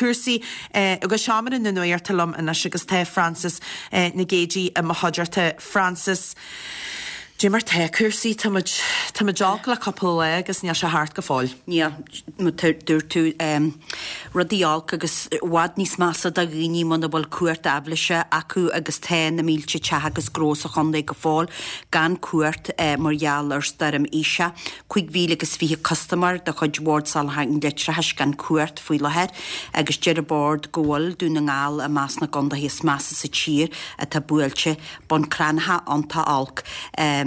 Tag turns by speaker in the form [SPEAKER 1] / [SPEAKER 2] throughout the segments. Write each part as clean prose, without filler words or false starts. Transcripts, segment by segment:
[SPEAKER 1] cúrsaí go seomra na nuachta liom anois agus tá Frances Nic Géadaigh i mo chuideachta. Frances, Dé mar tá cúrsaí, tá muid, tá muid olc le cúpla lá agus níl sé thart go fóill.
[SPEAKER 2] Níl, mar a dúirt tú, rudaí olc agus i bhfad níos measa do dhaoine muna bhfuil cumhacht aibhléise acu agus tá na mílte teach agus gnó sa chontae go fóill gan cumhacht mar gheall ar stoirm Isha. 5,020 custaiméir de chuid Bhord Soláthair an Leictreachais gan cumhacht faoi láthair agus deir an Bord go bhfuil Dún na nGall i measc na gcontaetha is measa sa tír atá buailte. Bun Cranncha iontach olc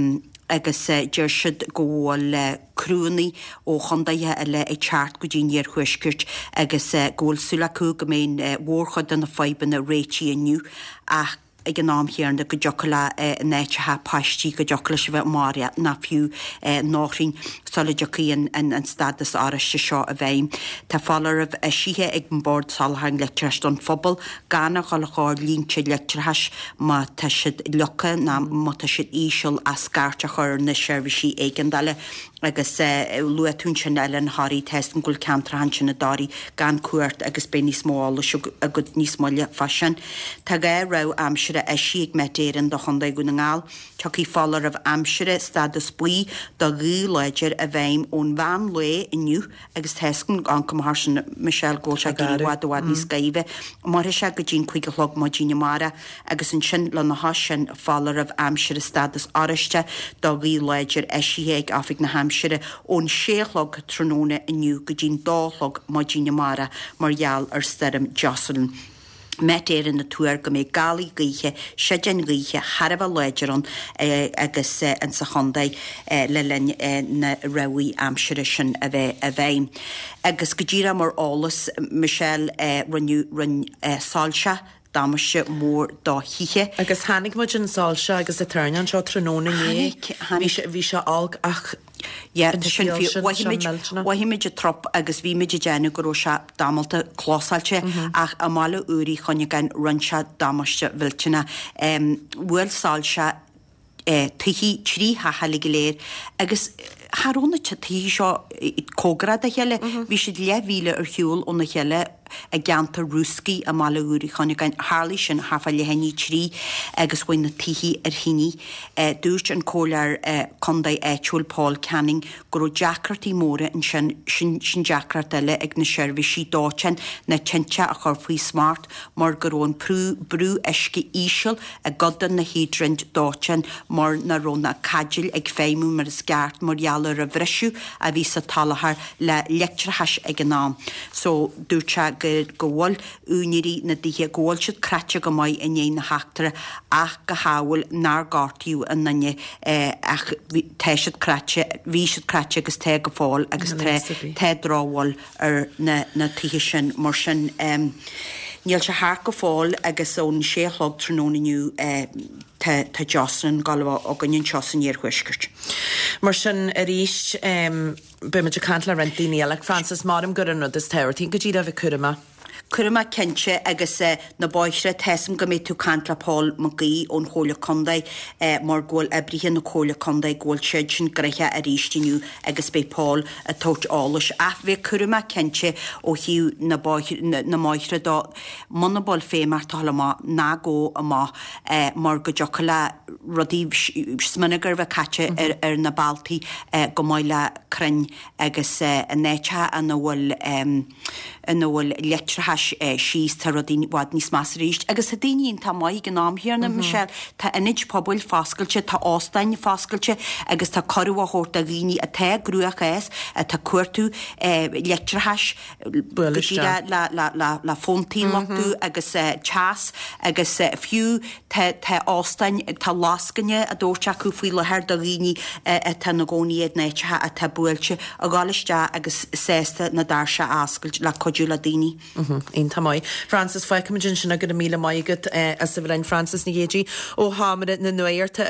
[SPEAKER 2] agus deir siad go bhfuil criúnna ó chontaetha eile ag teacht go dtí an iarthuaisceart agus go bhfuil súil acu go mbeidh an mhórchuid de na fadhbanna réitithe inniu ach ag an am chéanna go dtiocfadh le in áiteacha páistí go dtiocfadh leis a bheith maraithe nó fiú nóithrín sula dtiocfaidh an stádas oráiste seo i bhfeidhm. Tá foláireamh eisithe ag an Bord Soláthair an Leictreachais don phobal gan a dhul gar línte leictreachais má tá siad leagtha nó má tá siad íseal ach scairt a chur ar na seirbhísí éigeandála. Agus luaigh tú ansin Oileán Thoraí, tá 'fhios agam go bhfuil ceantracha ansin i dToraí gan cumhacht agus beidh níos mó eolais agat níos moille fá sin. Tá 2 rabhadh aimsire eisithe ag Met Éireann do Chontae Dhún na nGall. Tiocfaidh foláireamh aimsire stádas buí do ghaoth láidir i bhfeidhm ón mheán lae inniu Agus tá 'fhios agam an cuma thar sin, Michelle, go bhfuil sé ag éirí i bhfad i bhfad níos gaibhe. Mairfidh sé go dtí an 5 a chlog maidin amárach agus ansin lena chois sin foláireamh aimsire stádas oráiste do ghaoth láidir eisithe ag Oifig na hAimsire ón 6 a chlog tráthnóna inniu go dtí'n 2 a chlog maidin amárach mar gheall ar stoirm Jocelyn. Met Éireann ag tuar go mbeidh gálaí gaoithe, séideáin ghaoithe thar a bheith láidir ann agus insa chontae le linn na rabhaidh aimsire sin a bheith i bhfeidhm. Agus go díreach mar eolas, Michelle, rinneadh, rinne soilse damáiste mór do thithe.
[SPEAKER 1] Agus chonaic muid an soilse agus an toirneán seo tráthnóna inné.
[SPEAKER 2] Chonaic, chonaic.
[SPEAKER 1] Bhí sé olc ach.
[SPEAKER 2] Yeah, tá sin fíor. Mhothaigh muid, mhothaigh muid an trup agus bhí muid ag déanamh go raibh sé damalta clósáilte ach i mBaile Úr Uí Chuinneagáin rinne sé damáiste mhillteanach. Bhuail soilse tithe, 3 theach eile go léir agus cha raibh na tithe seo cóngarach dá chéile, bhí siad leathmhíle ar shiúl óna chéile. i gceantar Rúscaí i mBaile Úr Uí Chuinneagáin. Tharlaigh sin thart fá leath i ndiaidh 3 agus chuaigh na tithe ar thine. Dúirt an comhairleoir contae áitiúil Paul Canning go raibh deacrachtaí móra ansin, sin sin deacracht eile ag na seirbhísí dóiteáin na tinte a chur faoi smacht mar go raibh an brú uisce íseal i gcuid de na híodraint dóiteáin mar nach raibh na caidéil ag feidhmiú mar is ceart mar gheall ar an bhriseadh a bhí sa tsoláthar le leictreachas ag an am. So dúirt sé go go bhfuil úinéirí na dtithe, go bhfuil siad cráite go maith i ndiaidh na heachtra ach go hamhail nár gortaíodh aon duine ach tá siad cráite, bhí siad cráite agus tá go fóill agus tá tá drochbhail ar na na tithe sin. Mar sin níl sé thart go fóill agus ón sé a chlog tráthnóna inniu tá tá Jocelyn ag gabháil a bheith againn anseo san iarthuaisceart.
[SPEAKER 1] Mar sin arís beidh muid ag caint le roinnt daoine eile. Frances, maram gur an rud is tábhachtaí go díreach a bheith cúramach.
[SPEAKER 2] Cúramach cinnte agus na bóithre, tá 'fhios a'm go mbeidh tú ag caint le Paul Mac Aoidh ón Chomhairle Contae mar go bhfuil oibrithe na Comhairle Contae go bhfuil siad sin gnoitheach arís inniu agus beidh Paul ag tabhairt eolais. Ach bheith cúramach cinnte ó thaobh na na mbóithre dó, muna bhfuil feidhm ort a dhul amach, ná gabh amach mar go dtiocfadh le rudaí smionagar a bheith caite ar na bealtaí chomh maith le crainn agus in áiteacha ina bhfuil ina bhfuil leictreachas síos tá rudaí i bhfad níos measa arís. Agus tá daoine iontach maith ag an am chéanna, Michelle, tá ionaid pobail foscailte, tá óstáin foscailte agus tá cuireadh á thabhairt do dhaoine atá i gcruachás, atá ag cuartú leictreachais go díreach le fóntaí a luchtú agus teas agus fiú Tá, tá óstáin, tá lascaine á dtabhairt acu faoi láthair do dhaoine atá ina gcónaí in áiteacha atá buailte, a dhul isteach agus sásta na doirse a oscailt le cuidiú le daoine.
[SPEAKER 1] Iontach maith. Frances, fágfaimid ansin go raibh míle maith agat as a bheith linn. Frances Nic Géadaigh ó Sheomra na Nuachta.